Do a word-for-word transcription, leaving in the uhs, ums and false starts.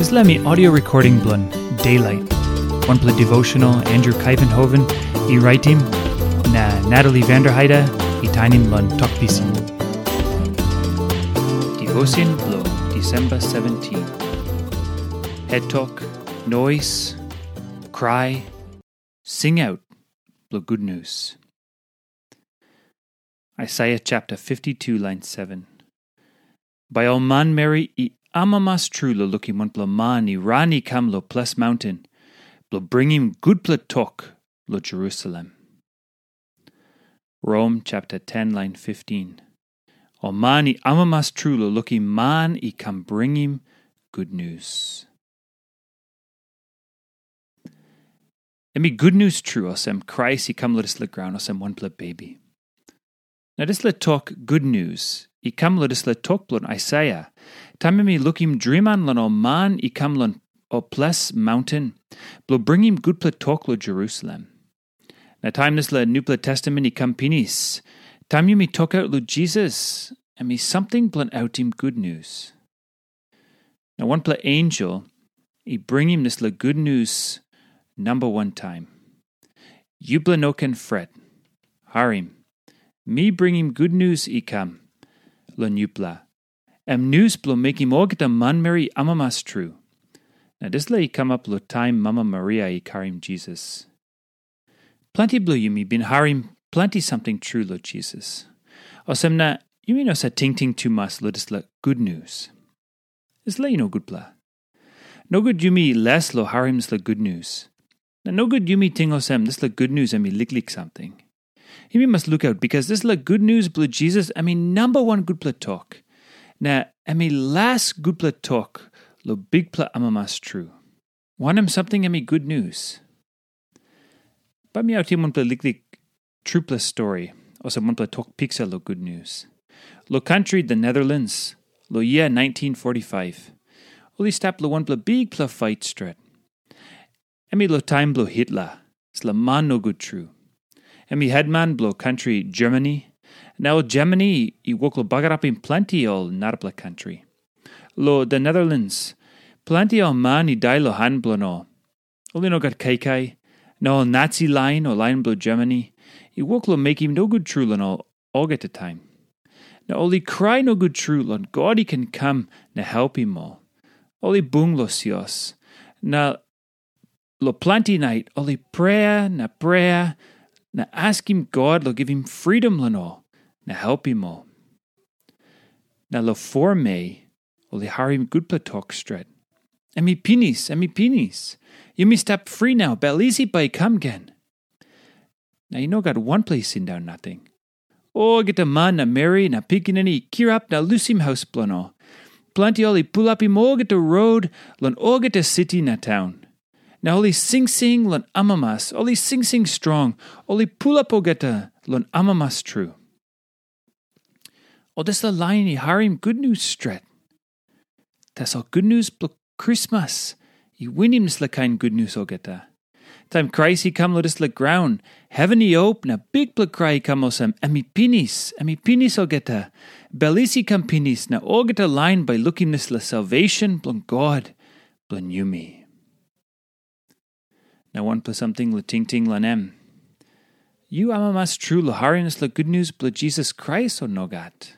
Dispela mi audio recording bilong Daylight, wanpela devotional Andrew Kaivenhoven i raitim, na Natalie Vanderheide i tainim long Tok Pisin. Devotion bilong Disemba seventeen. Het tok, nois, krai, singaut bilong gutnius. Aisaia chapter fifty-two, line seven. Bai ol manmeri i amamas tru long lukim wanpela man i ran i kam long ples maunten, bilong bringim gutpela tok long Jerusalem. Rom chapter ten, line fifteen. Ol man i amamas tru long lukim man i kam bringim gutnius. Em i gutnius tru olsem Krais i kam long dispela graun olsem wanpela bebi. Na dispela tok gutnius i kam long dispela tok bilong Aisaia, taim em i lukim driman long ol man i kam long ol ples maunten, bilong bringim gutpela tok long Jerusalem. Na taim dispela nupela testamen i kam pinis, taim yumi tokaut long Jisas, em i samting bilong autim gutnius. Na wanpela ensel i bringim dispela gutnius namba wan taim. Yupela no ken fret. Harim, mi bringim gutnius i kam long yupela. Em nius bilong mekim olgeta manmeri amamas tru. Na dispela i kamap long taim mama Maria i karim Jisas. Planti bilong yumi bin harim planti samting tru long Jisas. Olsem na, yumi no save tingting tumas long dispela gutnius. Dispela i no gutpela. Nogut yumi les long harim dispela gutnius. Na nogut yumi ting olsem dispela gutnius em i liklik samting. Yumi mas lukaut, bikas dispela gutnius bilong Jisas em i namba wan gutpela tok. Na em i las gutpela tok long bikpela amamas tru. Wanem samting em i gutnius? Bai mi autim wanpela liklik trupela stori, olsem wanpela tok piksa long gutnius. Long kantri The Netherlands, long yia nineteen forty-five, ol i stap long wanpela bikpela fait stret. Em i long taim bilong Hitler, dispela man nogut tru. Em i hetman bilong kantri Germany, na ol Germany i wok long bagarapim planti ol narapela kantri. Long The Netherlands, planti ol man i dai long han bilong ol. Ol i no gat kaikai, na ol Nazi lain o lain bilong Germany i wok long mekim nogut tru long ol olgeta taim. Na ol i krai nogut tru long God i ken kam na helpim ol. Ol i bung long sios, na long planti nait ol i prea na prea na askim God long givim fridom long ol na helpim ol. Na long foa mei, ol i harim gutpela tok stret. Em i pinis, em i pinis. Yumi stap fri nau, bel isi bai i kam gen. Na i no gat wanpela i sindaun nating. Olgeta man na meri na pikinini i kirap na lusim haus bilong ol. Planti ol i pulapim olgeta rot long olgeta siti na taun. Na ol i singsing long amamas, ol i singsing strong, ol i pulap olgeta long amamas tru. Ol dispela lain i harim gutnius stret. Tasol gutnius bilong Krismas i winim dispela kain gutnius olgeta. Taim Krais i kam long dispela graun, heven i op na bikpela krai i kam olsem, "Em i pinis, em i pinis olgeta." Bel isi i kam pinis, na olgeta lain bai lukim dispela salvation bilong God bilong yumi. Na wanpela samting long tingting long em. Yu amamas tru long harim dispela gutnius bilong Jisas Krais, o nogat?